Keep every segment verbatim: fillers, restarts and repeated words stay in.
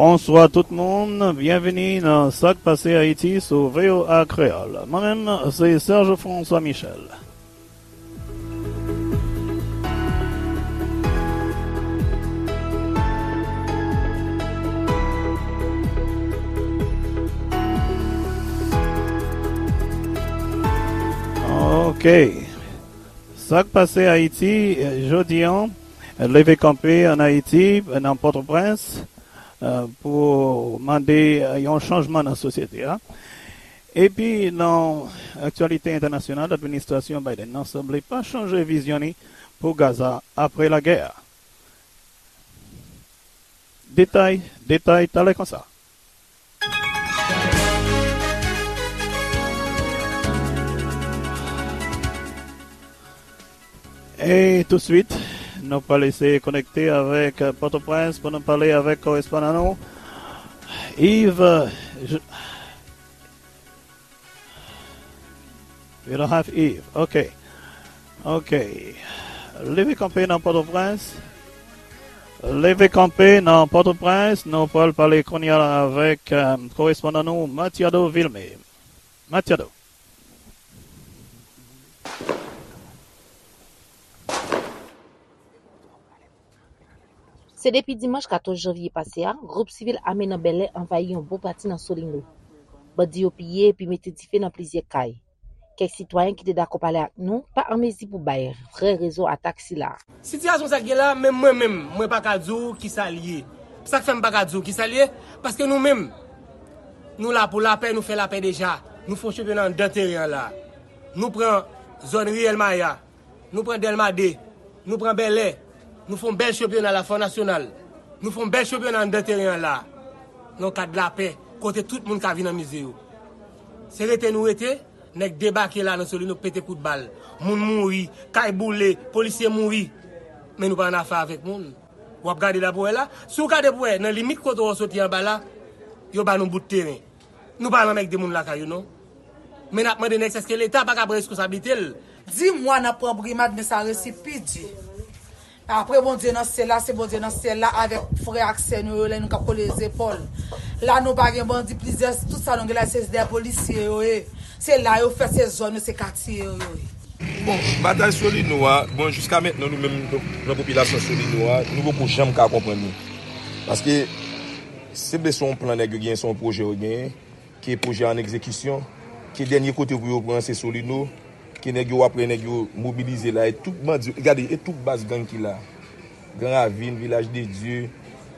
Bonswa tout moun, byenvini nan Sa k Pase Ayiti sou V O A Kreyòl. Mwen menm, se Serge François Michel. Ok. Sa k pase Ayiti, eh, jodi an, leve kanpe ann Ayiti, nan Pòtoprens, eh, pou mande, eh, yon chanjman nan sosyete a. Epi, nan aktyalite entènasyonal, administrasyon Biden nan sanble pa chanje vizyon li pou Gaza apre lagè a. Detay, detay, talè konsa. E touswit, nou pral eseye konekte avèk Pòtoprens pou nou pale avèk korespondan nou, Yves. Je- We don't have Yves. Ok. Ok. Leve kanpe nan Pòtoprens. Leve kanpe nan Pòtoprens. Nou pral pale kounye a la avèk, eh, korespondan nou, Matiado Vilmé. Matiado. Se depi dimanch katòz janvye pase a, gwoup sivil ame nan Bèlè anvayi yon bon pati nan Solino. Bandi yo piye epi mete dife nan plizyè kay. Kèk sitwayen ki te dakò pale ak nou pa an mezi pou bay vrè rezon atak sila a. Sitiyasyon sa k gen la, menm mwen menm, mwen pa ka di w kisa l ye. Sa k fè m pa ka di w kisa l ye, paske nou menm, nou la pou lapè, nou fè lapè deja. Nou fè yon chanpyona anndan teren an la. Nou pran zòn Riyèl Maya. Nou pran Dèlma de, nou pran Bèlè, nou fè yon bèl chanpyona la, fò nasyonal. Nou fè yon bèl chanpyona anndan teren an la. Nan yon kad lapè, kote tout moun ka vin anmize yo. Se rete nou rete, nèg debake la nan Solino, pete kout bal. Moun mouri, kay boule, polisye mouri. Men nou pa annafè avèk moun. W ap gade la pou wè la. Si w gade pou wè, nan limit kote w soti anba la, yo ba nou bout teren. Nou pa anmègde moun lakay yo non. Men n ap mande nèg sa èske Leta pa ka pran reskonsablite l. Di mwa n ap pran brimad, men sa resi pi di. Apre Bondye nan syèl la, se Bondye nan syèl la avèk frè ak sè nou yo, lè nou ka kole zepòl. La nou pa gen bandi, plizyè, tout sa nou gen la se dèyè polisye yo ye. Se la yo fèt, se zòn yo, se katye yo yo ye. Bon, batay Solino a, bon, jiska mentnan nou menm, nan popilasyon Solino a, nou poko janm ka konprann li. Paske se vle se yon plan nèg yo genyen, se yon pwojè yo genyen, ke pwojè an egzekisyon, ke dènye kote pou yo pran se Solino, ke nèg yo, w ap wè nèg yo mobilize la, e tout bandi, gade, e tout baz gang ki la. Gran Ravin, Vilaj de Dye,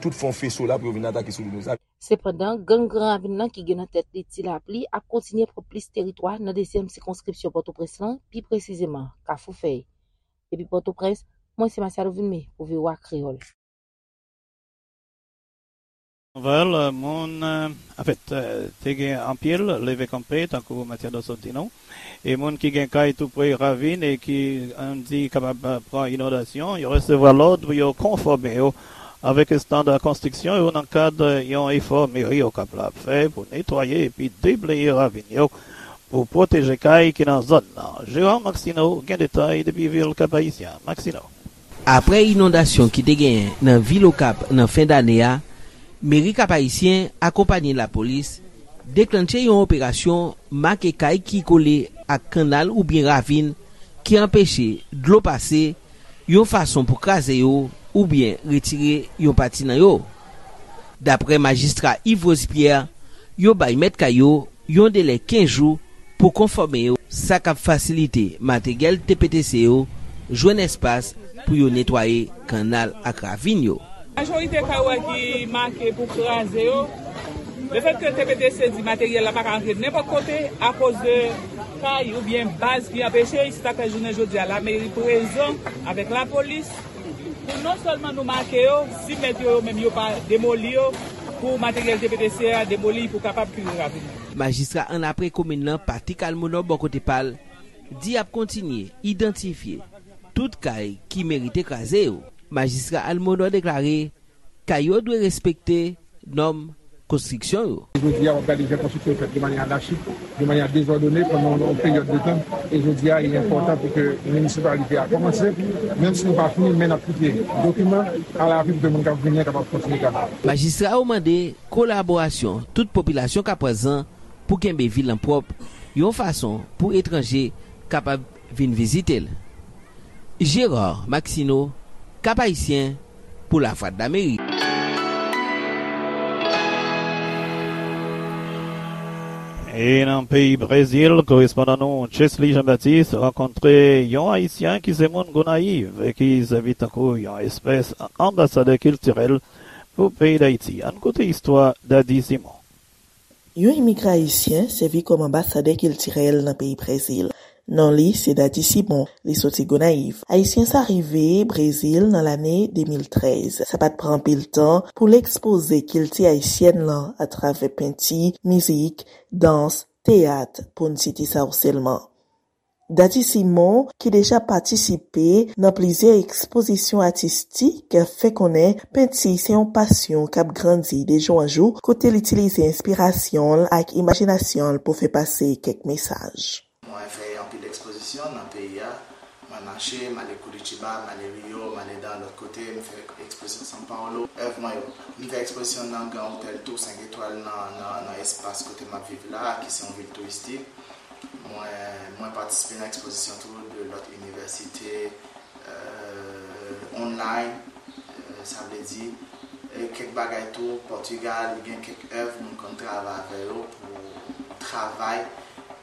tout fè yon feso la pou yo vin atake Solino. Sa Sepandan, gang Gran Ravin nan ki gen nan tèt li Ti Lapli ap kontinye pran plis teritwa nan dezyèm sikonskripsyon Pòtoprens lan, pi presizeman, Kafou Fèy. Depi Pòtoprens, mwen se Matiado Vilmé pou V O A Kreyòl. Nouvèl, moun, anfèt, te gen anpil leve kanpe, tankou Matiado sot di nou. E moun ki gen kay tou pre ravin e ki, ann di, kapab pran inondasyon, yo resevwa lòd pou yo konfòme yo avèk estanda konstriksyon yo nan kad yon efò meri Okap la ap fè pou netwaye epi debleye ravin yo pou pwoteje kay ki nan zòn nan. Gérard Maxineau gen detay depi vil Kap Ayisyen. Maxineau. Apre inondasyon ki te genyen nan vil Okap nan fen dane a, meri Kap Ayisyen akonpanye lapolis deklannche yon operasyon make kay ki kole ak kannal oubyen ravin ki anpeche dlo pase, yon fason pou kraze yo oubyen retire yon pati nan yo. Dapre majistra Yves Rose Pierre, yo bay mèt kay yo yon delè kenz jou pou konfòme yo, sa k ap fasilite materyèl T P T C yo jwenn espas pou yo netwaye kannal ak ravin yo. Majorite kay ou wè ki make pou kraze yo, lefètke T P T C di materyèl la pa ka rantre nenpòt kote akoz de kay oubyen baz ki anpeche, se sa k fè jounen jodi a lameri prezan avèk lapolis pou non sèlman nou make yo, si mèt yo, yo menm yo pa demoli yo, pou materyèl T P T C a demoli pou kapab kire ravin nan. Majistra annapre komin nan, Patrick Almonor, bò kote pa l, di y ap kontinye idantifye tout kay ki merite kraze yo. Majistra Almonor deklare kay yo dwe respekte nòm konstriksyon yo. Jodi a, w ap gade jan konstriksyon yo fèt de manyè anachik, de manyè dezòdone pandan yon peryòd de tan. E jodi a, li enpòtan pou ke minisipalite a kòmanse, menm si nou pa fini, men n ap kite dokiman a lavi pou ke moun k ap vini an kapab kontinye travay. Majistra yo mande kolaborasyon tout popilasyon Kapwazan pou kenbe vil lan pwòp, yon fason pou etranje kapab vin vizite l. Gérard Maxineau, Cap-Haïtien, pou Lavwadlamerik. E nan peyi Brezil, korespondan nou Chesley Jean-Baptiste rankontre yon Ayisyen ki se moun Gonayiv e ki sèvi tankou yon espès anbasadè kiltirèl pou peyi Dayiti. Ann koute istwa Dady Simon. Yon imigran ayisyen sèvi kòm anbasadè kiltirèl nan peyi Brezil. Non li se Dady Simon, li soti Gonayiv. Ayisyen sa rive Brezil nan lane de mil trèz. Sa pa t pran anpil tan pou l ekspoze kilti ayisyèn lan atravè penti, mizik, dans, teyat, pou n site sa yo sèlman. Dady Simon, ki deja patisipe nan plizyè ekspozisyon atistik, fè konnen penti se yon pasyon k ap grandi de jou an jou, kote l itilize enspirasyon l ak imajinasyon l pou fè pase kèk mesaj. Mwen fè anpil ekspozisyon nan peyi a. Mwen mache, m ale Curitiba, m ale Rio, m ale nan lòt kote, m fè ekspozisyon São Paulo. Èv mwen yo, m fè ekspozisyon nan Grand Hôtel Tour senk etwal nan, nan, nan espas kote m ap viv la, ki se yon vil touristik. Mwen, mwen patisipe nan ekspozisyon tou de lòt inivèsite, euh, online, euh, sa vle di, e kèk bagay tou, Pòtigal, gen kèk èv moun konn travay avè yo pou travay,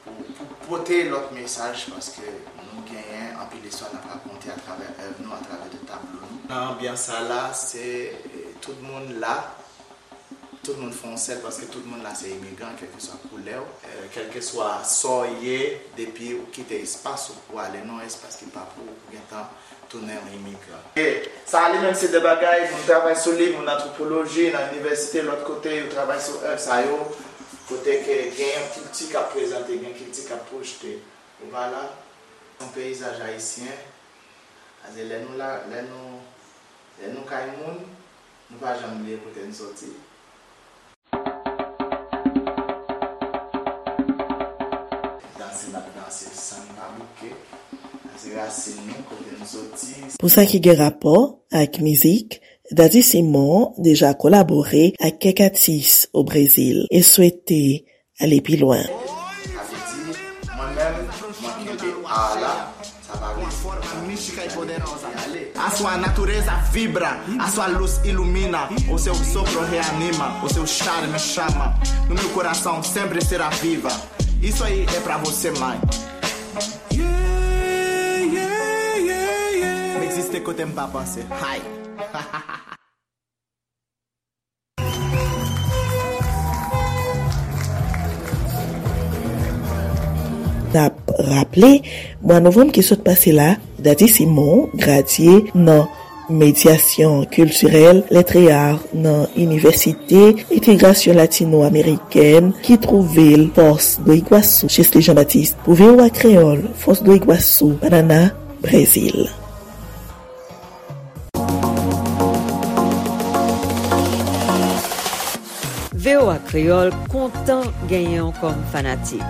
pou, pou pote lòt mesaj, paske nou genyen anpil istwa n ap rakonte atravè èv nou, atravè de tablo nou. Nan anbyans sa la, se, eh, tout moun la, tout moun fè yon sèl, paske tout moun la se imigran, kèlkeswa koulè w, eh, kèlkeswa sa w ye, depi ou kite espas ou pou ale nan yon espas ki pa pou ou, ou gentan tounen yon imigran. E sa li menm se de bagay, moun travay sou li, moun antwopoloji, nan inivèsite, lòt kote, yo travay sou èv sa yo, kote ke gen yon kilti k ap prezante, gen kilti k ap pwojte. Ou pa la, yon peyizaj ayisyen, paske lè nou la, lè nou, lè nou kay moun, nou pa janm bliye kote n soti. Danse n ap danse san n pa bouke. Sa se rasin nou, kote n soti. Pou sa ki gen rapò ak mizik, Dady Simon deja kolabore ak kèk atis o Brezil e swete ale pi lwen. Sa vle di, mwen menm, mwen kenbe a la, sa pa vle di A sua natureza vibra, a sua luz ilumina, o seu sopro reanima, o seu charme chama, no meu coração sempre será viva. Isso aí é pra você, mãe. Yeah, yeah, yeah, yeah. M egziste kote m pa panse. Hay. N ap raple, mwa novanm ki sot pase la, Dady Simon gradye nan medyasyon kiltirèl, lèt e ar nan Inivèsite Entegrasyon Latino Amerikèn ki twouve l Foz do Iguaçu. Chesley Jean-Baptiste pou V O A Kreyòl, Foz do Iguaçu, Paraná, Brezil. V O A Kreyòl kontan genyen w kòm fanatik.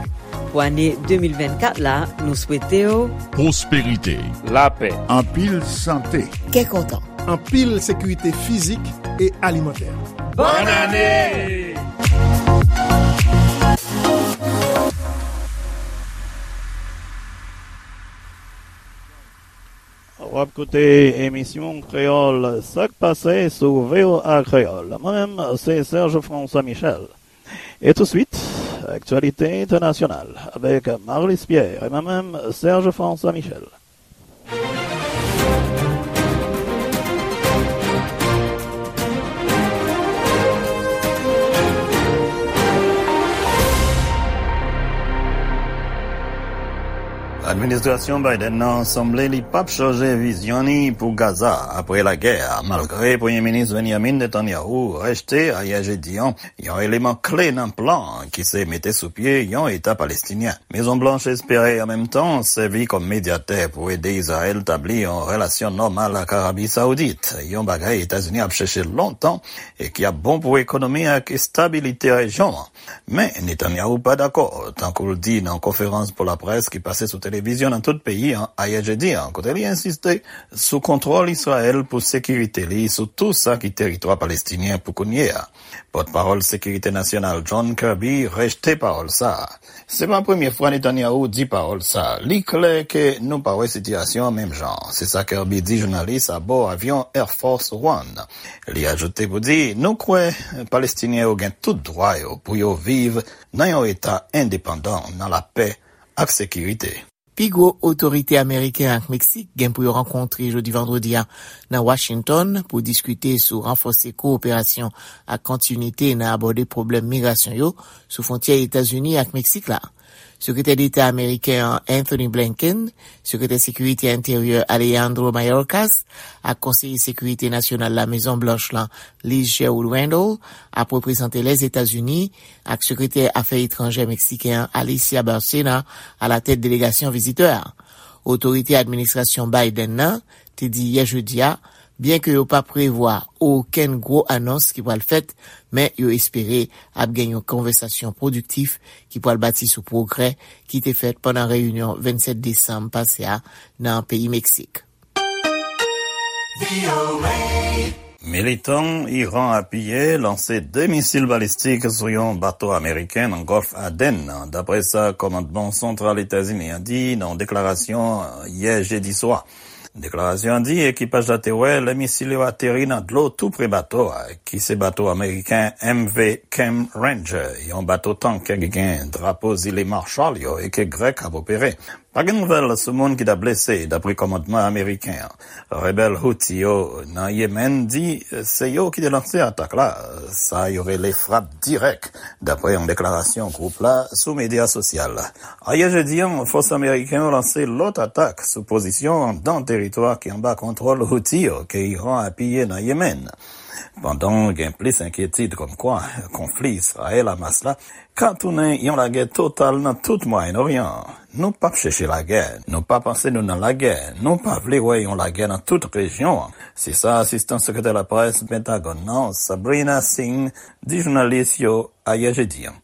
Pou ane de mil vennkat la, nou swete w pwosperite, lapè, anpil sante, kè kontan, anpil sekirite fizik e alimantè. Bòn ane! W ap koute emisyon Kreyòl Sa k Pase sou V O A Kreyòl. Mwen menm, se Serge François Michel. E touswit, aktyalite entènasyonal avèk Marlis Pierre. E mwen menm, Serge François Michel. Administrasyon Biden nan sanble li p ap chanje vizyon ni pou Gaza apre lagè a, malgre Premye Minis Benjamin Netanyahu rejte ayè jedi an yon eleman kle nan plan an ki se mete sou pye yon Eta palestinyen. Mezon Blanch espere an menm tan sèvi kòm medyatè pou ede Izrayèl tabli yon relasyon nòmal ak Arabi Sawdit, yon bagay Etazini ap chèche lontan e ki ap bon pou ekonomi ak estabilite rejyon an. Men, Netanyahu pa dakò, tankou l di nan konferans pou laprès ki pase sou televizyon nan tout peyi an ayè jedi an, kote li ensiste sou kontwòl Izrayèl pou sekirite li sou tou sa ki teritwa palestinyen pou kounye a. Pòtpawòl Sekirite Nasyonal John Kirby rejte pawòl sa a. Se pa premye fwa Netanyahu di pawòl sa a. Li klè ke nou pa wè sitiyasyon an menm jan. Se sa Kirby di jounalis abò avyon Air Force One. Li ajoute pou di, nou kwè Palestinyen yo gen tout dwa yo pou yo viv nan yon eta endepandan, nan lapè ak sekirite. Pi gwo otorite ameriken ak Meksik gen pou yo rankontre jodi vandredi a nan Washington pou diskite sou ranfòse kowoperasyon ak kontinite nan abòde pwoblèm migrasyon yo sou fwontyè Etazini ak Meksik la. Sekretè Deta ameriken an Anthony Blinken, Sekretè Sekirite Enteryè Alejandro Mayorkas ak Konseye Sekirite Nasyonal Lamezon Blanch lan, Liz Sherwood Randall, ap reprezante Lèzetazini ak Sekretè Afè Etranjè meksiken an, Alicia Bárcena, alatèt delegasyon vizitè a. Otorite administrasyon Biden nan te di yè jedi a, byenke yo pa prevwa okenn gwo anons ki pral fèt, men yo espere ap gen yon konvèsasyon pwodiktif ki pral bati sou pwogrè ki te fèt pandan reyinyon vennsèt desanm pase a nan peyi Meksik. Militan Iran apiye lanse de misil balistik sou yon bato ameriken nan Gòlf Aden nan, dapre sa kòmandman santral Etazini an di nan yon deklarasyon yè jedi swa. Deklarasyon an di ekipaj la te wè lè misil yo ateri nan dlo tou pre bato a, ki se bato ameriken M V Cam Ranger, yon bato tank ki gen drapo zile Marshall yo e ke Grèk ap opere. Pa gen nouvèl sou moun ki ta blese, dapre kòmandman ameriken an. Rebèl Houthi yo nan Yemen di se yo ki te lanse atak la, sa yo rele frap dirèk, dapre yon deklarasyon gwoup la sou medya sosyal. Ayè jedi an, fòs ameriken yo lanse lòt atak sou pozisyon anndan teritwa ki anba kontwòl Houthi yo ke Iran apiye nan Yemen. Pandan gen plis enkyetid kòmkwa konfli Izrayèl-Hamas la ka tounen yon lagè total nan tout Mwayen Oryan an. Nou p ap chèche lagè, nou pa panse nou nan lagè, nou pa vle wè yon lagè nan tout rejyon an. Se sa asistan sekretè laprès Pentagòn nan, Sabrina Singh, di jounalis yo ayè jedi an.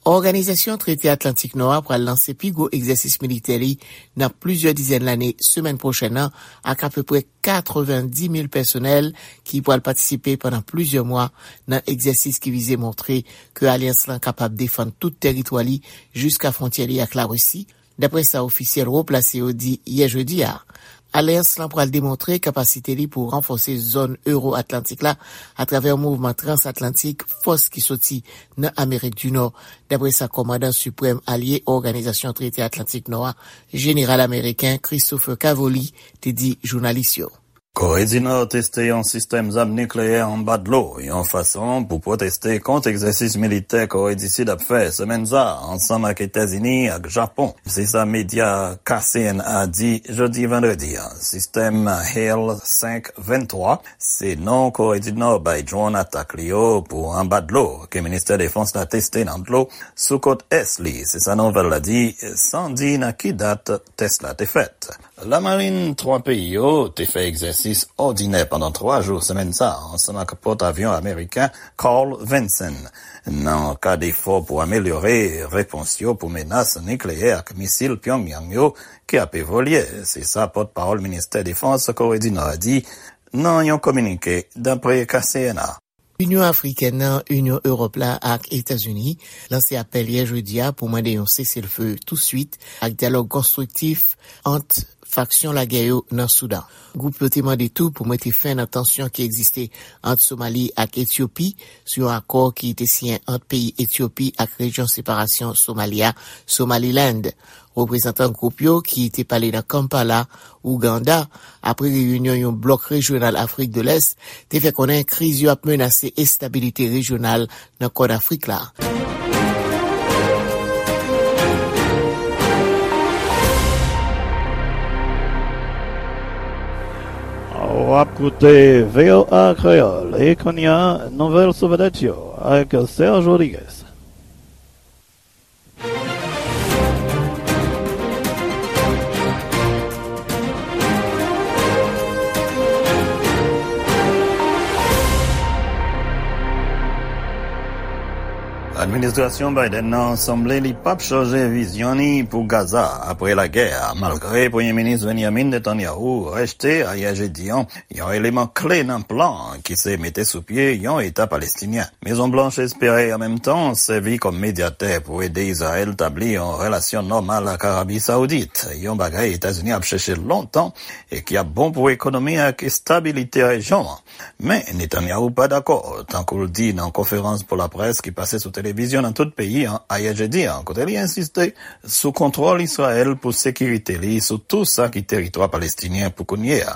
Òganizasyon Trete Atlantik Nò a pral lanse pi gwo egzèsis militè li nan plizyè dizèn lane semèn pwochèn nan, ak apeprè katrevendimil pèsonèl ki pral patisipe pandan plizyè mwa nan egzèsis ki vize montre ke alyans lan kapab defann tout tèritwa li jiska fwontyè li ak Larisi, dapre sa ofisyèl wo plase yo di yè jedi a. Alyans lan pral demontre kapasite li pou ranfòse zòn Ewo-Atlantik la atravè yon mouvman transatlantik fòs ki soti nan Amerik di Nò, dapre sa kòmandan siprèm alye Òganizasyon Trete Atlantik Nò a, jeneral ameriken Christopher Cavoli, te di jounalis yo. Kore di Nò teste yon sistèm zam nikleyè anba dlo, yon fason pou pwoteste kont egzèsis militè Kore di Sid ap fè semèn sa a, ansanm ak Etazini ak Japon. Se sa medya K C N A di jodi vandredi a. Sistèm Hail senk venntwa se non Kore di Nò bay dwòn atak li yo pou anba dlo, ke ministè defans la teste nan dlo sou kot ès li. Se sa nouvèl la di, san di nan ki dat tès la te fèt. Lamarin twa peyi yo te fè egzèsis òdinè pandan twa jou semèn sa a, ansanm ak pòtavyon ameriken Carl Vinson, nan kad efò pou amelyore repons yo pou menas nikleyè ak misil Pyongyang yo ki ap evolye. Se sa pòtpawòl ministè defans Kore di Nò a di nan yon kominike, dapre K C N A. Inyon Afrikèn nan, Inyon Ewòp la ak Etazini lanse apèl yè jedi a pou mande yon seselfe touswit ak dyalòg konstriktif ant faksyon lagè yo nan Soudan. Gwoup yo te mande tou pou mete fen nan tansyon ki egziste ant Somali ak Etyopi sou yon akò ki te siyen ant peyi Etyopi ak rejyon separasyon Somali a, Somaliland. Reprezantan gwoup yo ki te pale nan Kampala, Ouganda, apre reyinyon yon blòk rejyonal Afrik de Lès, te fè konnen kriz yo ap menase estabilite rejyonal nan Kòn Afrik la. W ap koute V O A Kreyòl, e kounye a, nouvèl sou vedèt yo ak Serge Rodriguez. Administrasyon Biden nan sanble li p ap chanje vizyon ni pou Gaza apre lagè a, malgre Premye Minis Benjamin Netanyahu rejte ayè jedi an yon eleman kle nan plan ki se mete sou pye yon Eta palestinyen. Mezon Blanch espere an menm tan sèvi kòm medyatè pou ede Izrayèl tabli yon relasyon nòmal ak Arabi Saoudit, yon bagay Etazini ap chèche lontan e ki ap bon pou ekonomi ak estabilite rejyon an. Men, Netanyahu pa dakò, tankou l di nan konferans pou laprès ki pase sou televizyon nan tout peyi an ayè jedi an, kote li ensiste sou kontwòl Izrayèl pou sekirite li sou tou sa ki teritwa palestinyen pou kounye a.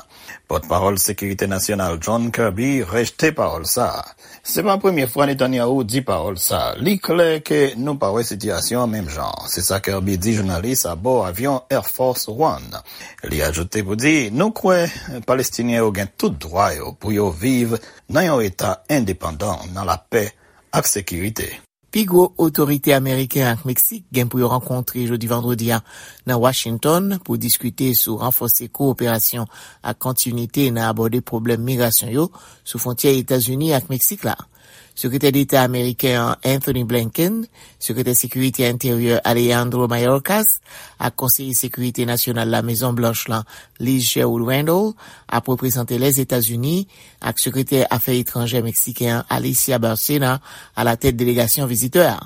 Pòtpawòl Sekirite Nasyonal John Kirby rejte pawòl sa a. Se pa premye fwa Netanyahu di pawòl sa a. Li klè ke nou pa wè sitiyasyon an menm jan. Se sa Kirby di jounalis abò avyon Air Force One. Li ajoute pou di, nou kwè Palestinyen yo gen tout dwa yo pou yo viv nan yon eta endepandan, nan lapè ak sekirite. Pi gwo otorite ameriken ak Meksik gen pou yo rankontre jodi vandredi a nan Washington pou diskite sou ranfòse kowoperasyon ak kontinite nan abòde pwoblèm migrasyon yo sou fwontyè Etazini ak Meksik la. Sekretè Deta ameriken an Anthony Blinken, Sekretè Sekirite Enteryè Alejandro Mayorkas ak Konseye Sekirite Nasyonal Lamezon Blanch lan Liz Sherwood Randall ap reprezante Lèzetazini ak Sekretè Afè Etranjè meksiken an Alicia Bárcena alatèt delegasyon vizitè a.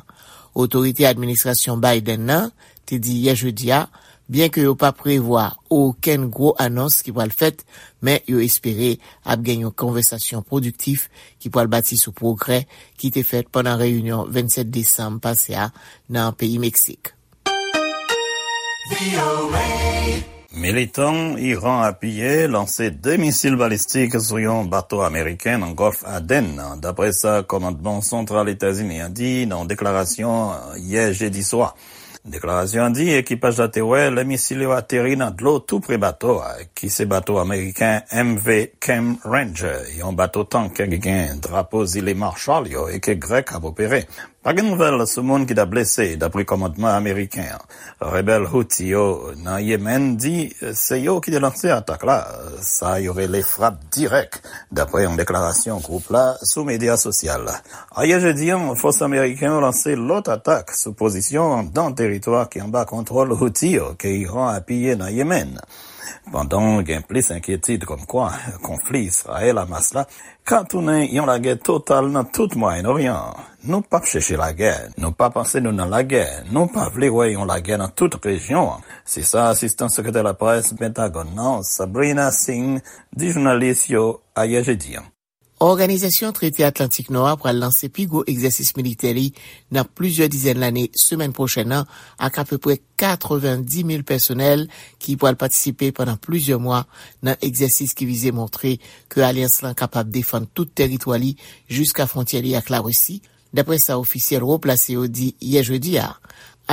Otorite administrasyon Biden nan te di yè jedi a, byenke yo pa prevwa okenn gwo anons ki pral fèt, men yo espere ap gen yon konvèsasyon pwodiktif ki pral bati sou pwogrè ki te fèt pandan reyinyon vennsèt desanm pase a nan peyi Meksik. Militan Iran apiye lanse de misil balistik sou yon bato ameriken nan Gòlf Aden nan, dapre sa kòmandman santral Etazini an di nan yon deklarasyon yè jedi swa. Deklarasyon an di ekipaj la te wè lè misil yo ateri nan dlo tou pre bato a, ki se bato ameriken M V Chem Ranger, yon bato tank ki gen drapo Zile Marshall yo e ke Grèk ap opere. Pa gen nouvèl sou moun ki ta blese, dapre kòmandman ameriken an. Rebèl Houthi yo nan Yemen di se yo ki te lanse atak la, sa yo rele frap dirèk, dapre yon deklarasyon gwoup la sou medya sosyal. Ayè jedi an, fòs ameriken yo lanse lòt atak sou pozisyon anndan teritwa ki anba kontwòl Houthi yo ke Iran apiye nan Yemen. Pandan gen plis enkyetid kòmkwa konfli Izrayèl-Hamas la ka tounen yon lagè total nan tout Mwayen Oryan an. Nou p ap chèche lagè, nou pa panse nou nan lagè, nou pa vle wè yon lagè nan tout rejyon an. Se sa asistan sekretè laprès Pentagòn nan, Sabrina Singh, di jounalis yo ayè jedi an. Òganizasyon Trete Atlantik Nò a pral lanse pi gwo egzèsis militè li nan plizyè dizèn lane semèn pwochèn nan, ak apeprè katrevendimil pèsonèl ki pral patisipe pandan plizyè mwa nan egzèsis ki vize montre ke alyans lan kapab defann tout tèritwa li jiska fwontyè li ak Larisi, dapre sa ofisyèl wo plase yo di yè jedi a.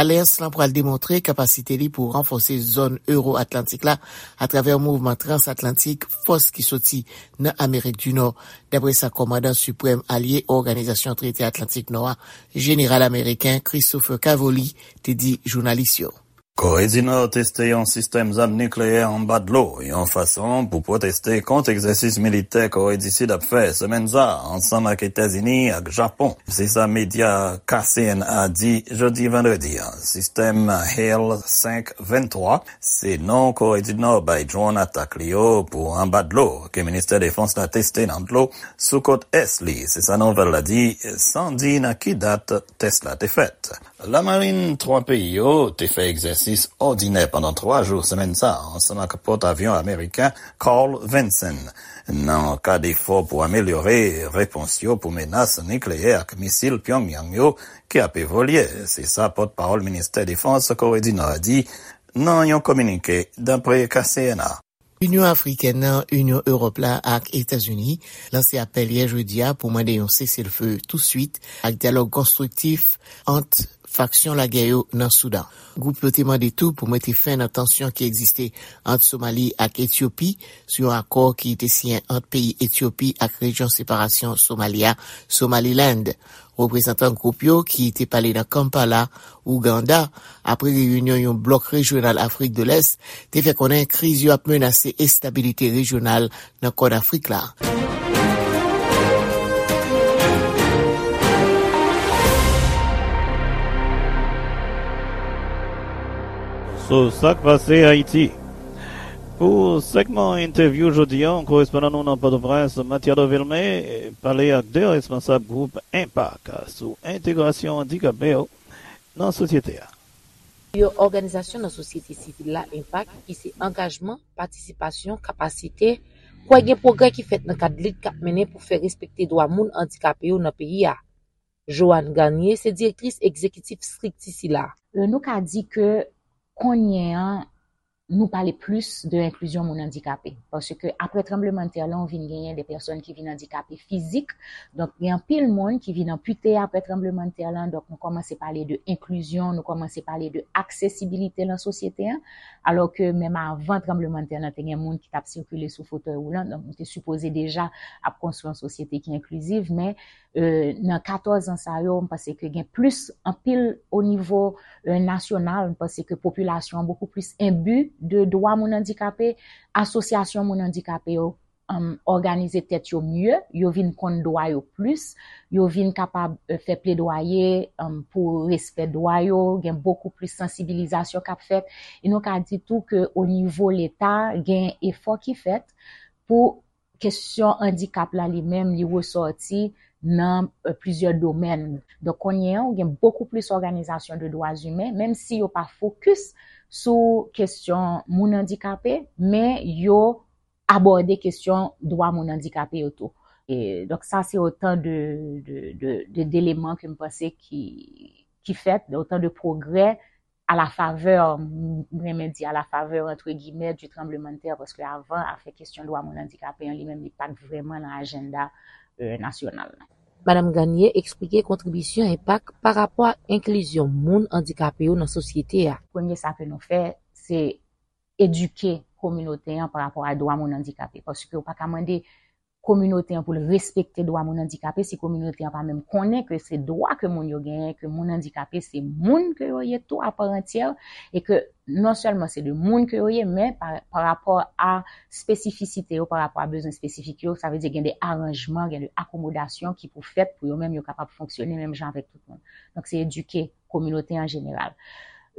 Alyans lan pral demontre kapasite li pou ranfòse zòn ewo-atlantik la atravè mouvman transatlantik fòs ki soti nan Amerik di Nò, dapre sa kòmandan siprèm alye Òganizasyon Trete Atlantik Nò a, jeneral ameriken Christopher Cavoli, te di jounalis yo. Kore di Nò teste yon sistèm zam nikleyè anba dlo, yon fason pou pwoteste kont egzèsis militè Kore di Sid ap fè semèn sa a, ansanm ak Etazini ak Japon. Se sa medya K C N A di jodi vandredi a. Sistèm Hail senk venntwa, se non Kore di Nò bay dwòn atak li yo pou anba dlo, ke ministè defans la teste nan dlo sou kot ès li. Se sa nouvèl la di, san di nan ki dat tès la te fèt. Lamarin twa peyi yo te fè egzèsis òdinè pandan twa jou semèn sa a, ansanm ak pòtavyon ameriken Carl Vinson, nan kad efò pou amelyore repons yo pou menas nikleyè ak misil Pyongyang yo ki ap evolye. Se sa pòtpawòl ministè defans Kore di Nò a di nan yon kominike, dapre K C N A. Inyon Afriken nan, Inyon Ewòp la ak Etazini lanse apèl yè jedi a pou mande yon seselfe touswit ak dyalòg konstriktif ant faksyon lagè yo nan Soudan. Gwoup yo te mande tou pou mete fen nan tansyon ki egziste ant Somali ak Etyopi sou yon akò ki te siyen ant peyi Etyopi ak rejyon separasyon Somali a, Somaliland. Reprezantan gwoup yo ki te pale nan Kampala, Ouganda, apre reyinyon yon blòk rejyonal Afrik de Lès, te fè konnen kriz yo ap menase estabilite rejyonal nan Kòn Afrik la. So, sa k pase Ayiti? Pou segman entèvyou jodi a, korespondan nou nan Pòtoprens, Matiado Vilmé, pale ak de responsab gwoup Enpak sou entegrasyon andikape yo nan sosyete a. Yon òganizasyon nan sosyete sivil la, Enpak, ki se angajman, patisipasyon, kapasite, kwè gen pwogrè ki fèt nan kad lit k ap mennen pou fè respekte dwa moun andikape yo nan peyi a. Joanne Garnier se direktris egzekitif estrikti sila. E, nou ka di ke kounye an, nou pale plis de enklizyon moun andikape. Paske apre tranblemanntè lan, ou vin genyen de pèsòn ki vin andikape fizik. Donk, gen anpil moun ki vin anpite apre tranblemanntè lan. Donk, nou kòmanse pale de enklizyon, nou kòmanse pale de aksesibilite nan sosyete an. Alò ke menm avan tranblemanntè lan, te gen moun ki t ap sikile sou fotèy woulan. Donk, nou te sipoze deja ap konstwi yon sosyete ki enkliziv, men e, nan katòz an sa yo, m panse ke gen plis anpil o nivo, e, nasyonal. M panse ke popilasyon an bokou plis enbi de dwa moun andikape. Asosyasyon moun andikape yo, em, òganize tèt yo mye, yo vin konn dwa yo plis, yo vin kapab, e, fè pledwaye, em, pou respè dwa yo, gen bokou plis sansibilizasyon k ap fèt. E nou ka di tou ke o nivo Leta, gen efò ki fèt pou kesyon andikap la li menm, li resòti nan, e, plizyè domèn. Donk, kounye an, ou gen bokou plis òganizasyon de dwa imen, menm si yo pa fokis sou kesyon moun andikape, men yo abòde kesyon dwa moun andikape yo tou. E, donk, sa se otan de, de, de, de, deleman ke m panse ki, ki fèt, otan de pwogrè a la favè, m renmen di a la favè, antre gimè, du tremblement de terre, paske avan, afè kesyon dwa moun andikape an li menm, li pa t vrèman nan ajanda, e, nasyonal la. Madanm Garnier eksplike kontribisyon Enpak pa rapò ak enklizyon moun andikape yo nan sosyete a. Premye sa ke nou fè, se edike kominote an pa rapò a dwa moun andikape, paske ou pa ka mande kominote an pou l respekte dwa moun andikape si kominote an pa menm konnen ke se dwa ke moun yo genyen, ke moun andikape se moun ke yo ye tou a pa antyè, e ke non sèlman se de moun ke yo ye, men pa, pa rapò a espesifisite yo, pa rapò a bezwen espesifik yo, sa vle di gen de aranjman, gen de akomodasyon ki pou fèt pou yo menm yo kapab fonksyone menm jan avèk tout moun. Donk, se edike kominote an jeneral.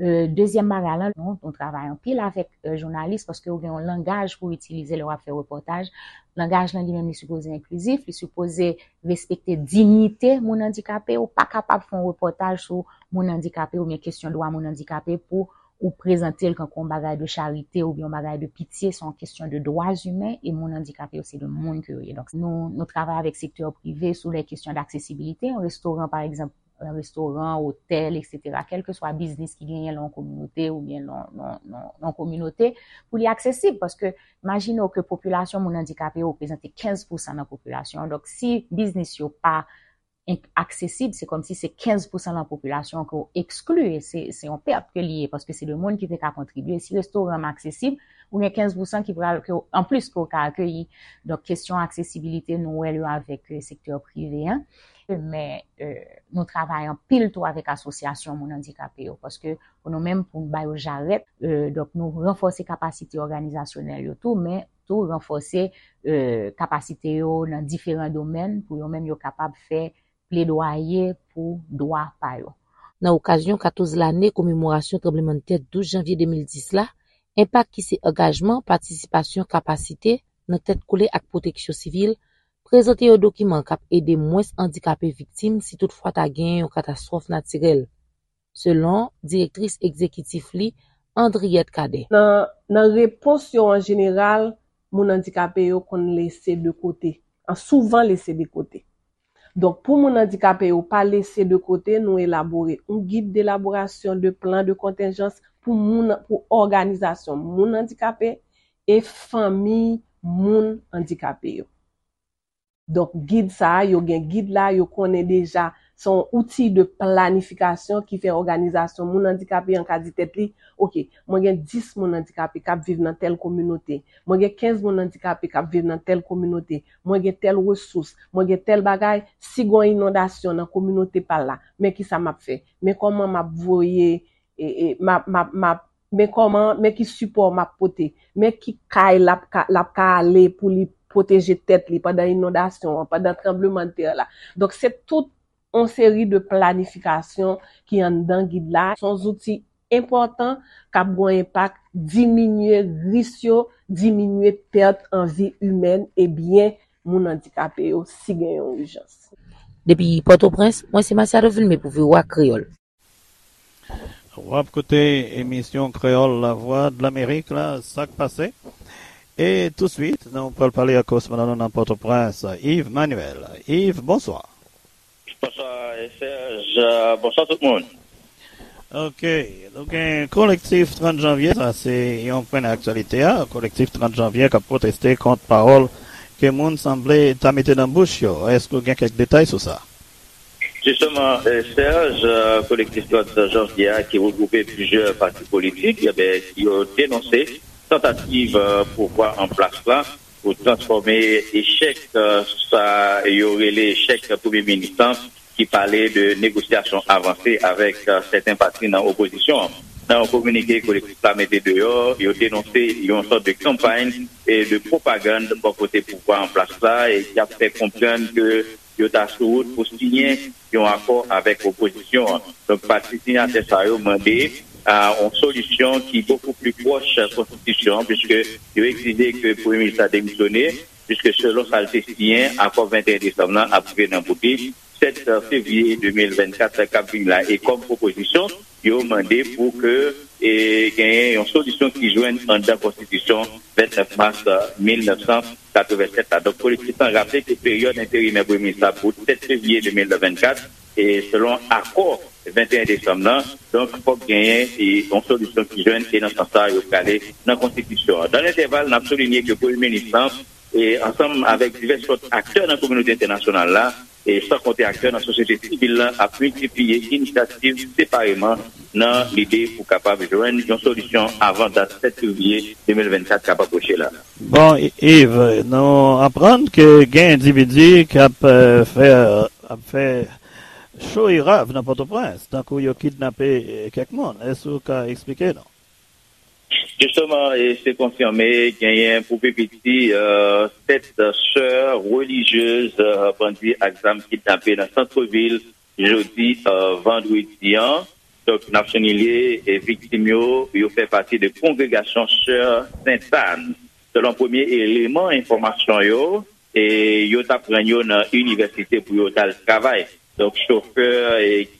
E, dezyèm bagay la, nou, nou travay anpil avèk, e, jounalis, paske ou gen yon langaj pou itilize lè w ap fè repòtaj. Langaj lan li menm, li sipoze enklizif, li sipoze respekte diyite moun andikape. Ou pa kapab fè yon repòtaj sou moun andikape oubyen kesyon dwa moun andikape pou ou prezante l kankou yon bagay de charite oubyen yon bagay de pitye. Se yon kesyon de dwa imen e moun andikape yo se de moun ke yo ye. Donk, nou, nou travay avèk sektè prive sou lè kesyon d'aksesibilite. Yon restoran, pa egzanp, nan restoran, otèl, etsetera, kèlkeswa biznis ki genyen nan yon kominote oubyen nan, nan, nan, nan yon kominote, pou li aksesib. Paske, imajine w ke popilasyon moun andikape yo reprezante kenz pousan nan popilasyon an. Donk, si biznis yo pa enk-, aksesib, se kòmsi se kenz pousan nan popilasyon an ke w ekskli, e se, se yon pèt ke li ye, paske se de moun ki te ka kontribye. Si restoran an aksesib, ou gen kenz pousan ki pral, ke w, anplis ke w ka akeyi. Donk, kesyon aksesibilite, nou wè l yo avèk, e, sektè prive an. Men, e, nou travay anpil tou avèk asosyasyon moun andikape yo, paske pou nou menm, pou n ba yo jarèt, e, donk, nou ranfòse kapasite òganizasyonèl yo tou, men tou ranfòse, e, kapasite yo nan diferan domèn pou yo menm yo kapab fè pledwaye pou dwa pa yo. Nan okazyon katòz lane komemorasyon tranblemanntè douz janvye de mil dis la, Enpak ki se angajman, patisipasyon, kapasite nan tèt kole ak pwoteksyon sivil, prezante yon dokiman k ap ede mwens andikape viktim si toutfwa ta genyen yon katastwòf natirèl, selon direktris egzekitif li, Andriette Cadet. Nan, nan repons yo an jeneral, moun andikape yo konn lese de kote, an souvan lese de kote. Donk, pou moun andikape yo pa lese de kote, nou elabore yon gid d'elaboration de plan de contingence pou moun, pou òganizasyon moun andikape e fanmi moun andikape yo. Donk, gid sa a, yo gen gid la, yo konnen deja se yon outi de planifikasyon ki fè òganizasyon moun andikape an ka di tèt li, oke, mwen gen dis moun andikape k ap viv nan tèl kominote, mwen gen kenz moun andikape k ap viv nan tèl kominote, mwen gen tèl resous, mwen gen tèl bagay, si gen yon inondasyon nan kominote pa l la, men kisa m ap fè? Men kòman m ap voye, e, e, m ap, m ap, m ap, men kòman, men ki sipò m ap pote, men ki kay l ap ka, l ap ka ale pou li pwoteje tèt li pandan inondasyon an, pandan tranblemanntè la. Donk, se tout yon seri de planifikasyon ki anndan gid la. Se yon zouti enpòtan k ap gen yon enpak, diminye risk yo, diminye pèt an vi imèn e byen moun andikape yo si gen yon ijans. Depi Pòtoprens, mwen se Masiado Vilmé pou V O A Kreyòl. W ap koute emisyon Kreyòl Lavwadlamerik la, Sa k pase. E touswit, nou pral pale ak korespondan nou nan Pòtoprens, Yves Manuel. Yves, bonswa. Bonswa, Serge. Bonswa tout moun. Ok, nou gen kolektif trant janvye, sa se yon pwen nan aktyalite a. Kolektif trant janvye k ap pwoteste kont pawòl ke moun sanble ta mete nan bouch yo. Èske w gen kèk detay sou sa? Jisteman, Serge, kolektif trant janvye a ki regwoupe plizyè pati politik, ebyen, yo denonse tantativ pouvwa an plas la pou transfòme echèk sa yo rele echèk premye minis lan, ki pale de negosyasyon avanse avèk sèten pati nan opozisyon an. Nan yon kominike kolektif la mete deyò, yo denonse yon sòt de kanpay de pwopagann bò kote pouvwa an plas la e ki ap fè konprann ke yo ta sou wout pou siyen yon akò avèk opozisyon an. Donk, pati siyatè sa yo mande yon solisyon ki bokou pli pwòch konstitisyon an, piske yo egzije ke premye minis la demisyone, piske selon sa l te siyen, akò venteyen desanm nan ap rive nan bout li. Sèt fevriye de mil vennkat k ap vini la. E kòm opozisyon, yo mande pou ke genyen yon solisyon ki jwenn anndan konstitisyon vennèf mas mil nèf san katrevennsèt la. Donk, kolektif lan raple ke peryòd enterimè premye minis la bout sèt fevriye de mil vennkat, e selon akò venteyen desanm nan, donk, fòk genyen yon solisyon ki jwenn, e nan sans sa, yo prale nan konstitisyon an. Dan lentèval, n ap soulinye ke premye minis lan, e ansanm avèk divès lòt aktè nan kominote entènasyonal la, e san konte aktè nan sosyete sivil lan, ap miltipliye inisyativ separeman nan lide pou kapab jwenn yon solisyon avan dat sèt fevriye de mil vennkat k ap apwoche la. Bon, Yves, nou aprann ke gen endividi k ap fè ap fè cho e rav nan Pòtoprens, tankou yo kidnape kèk moun. Èske w ka eksplike nou? Jisteman, e se konfime, genyen pou pi piti sèt sè relijyez bandi ak zam kidnape nan santrevil jodi vandredi an. Donk, n ap soulinye, viktim yo, yo fè pati de kongregasyon Sè Sentàn. Selon premye eleman enfòmasyon yo, e yo t ap rann yo nan inivèsite pou yo t al travay. Donk, chofè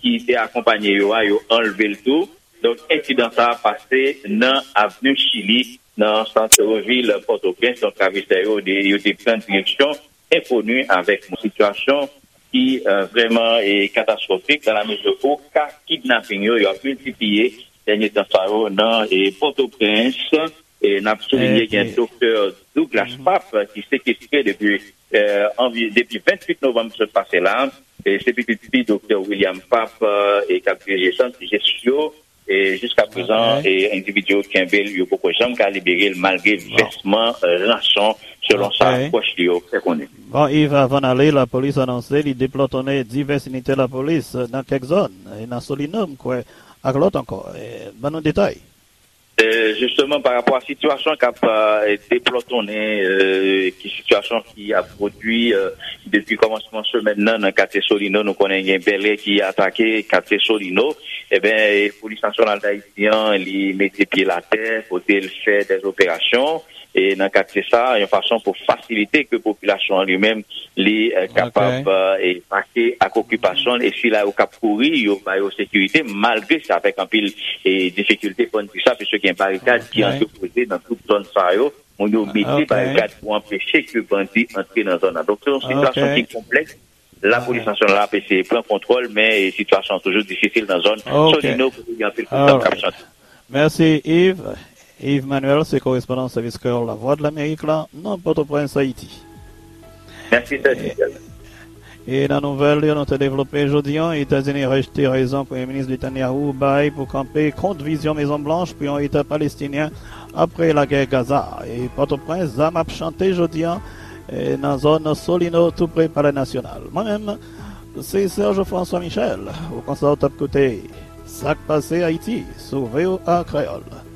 ki te akonpanye yo a, yo anlve l tou. Donk, ensidan sa a pase nan avni Chili, nan sant vil Pòtoprens. Donk, ravijè yo, yo te pran direksyon enkoni avèk yon sitiyasyon ki vrèman katastwofik, dan la mezi ou ka kidnaping yo, yo ap miltipliye dènye tan sa yo nan Pòtoprens. E n ap soulinye gen Doktè Douglas Pap ki sekestre depi depi venntuit novanm sot pase la. E se pitit fi Doktè William Pap e k ap dirije sant Jesyo. E jiska prezan, endividi yo kenbe l, yo poko janm ka libere l malgre vèsman ranson, selon sa pwòch li yo fè konnen. Bon, Yves, avan n ale, lapolis anonse li deplòtonnen divès inite lapolis nan kèk zòn, e nan Solino, m kwè, ak lòt ankò. Ban nou detay. Jisteman, pa rapò a sitiyasyon k ap deplòtonnen, ki sitiyasyon ki ap pwodui depi kòmansman semèn nan nan katye Solino, nou konnen gen bèlè ki atake katye Solino. Ebyen, Polis Nasyonal d Ayiti an, li mete pye l atè, kote l fè dèz operasyon e nan katye sa a, yon fason pou fasilite ke popilasyon an li menm li kapab epake ak okipasyon l, e sila yo k ap kouri, yo ba yo sekirite, malgre se avèk anpil difikilte, fò n di sa, piske gen barikad ki antrepoze nan tout zòn sa yo. Moun yo mete barikad pou anpeche ke bandi antre nan zòn nan. Donk, se yon sitiyasyon ki konplèks. Lapolis Nasyonal la ap eseye pran kontwòl, men sitiyasyon an toujou difisil nan zòn Solino, kote gen anpil kout zam k ap chante. Mèsi, Yves. Yves Manuel se korespondan Sèvis Kreyòl Lavwadlamerik la nan Pòtoprens, Ayiti. Mèsi, Sèvis. E nan nouvèl yo nou te devlope jodi an, Etazini rejte rezon Premye Minis Netanyahu bay pou kanpe kont vizyon Mezon Blanch pou yon Eta Palestinyen apre lagè Gaza. E Pòtoprens, zam ap chante jodi an e nan zòn Solino, tou pre Palè Nasyonal. Mwen menm, se Serge François Michel, ou konsa w t ap koute Sa k pase Ayiti sou V O A Kreyòl.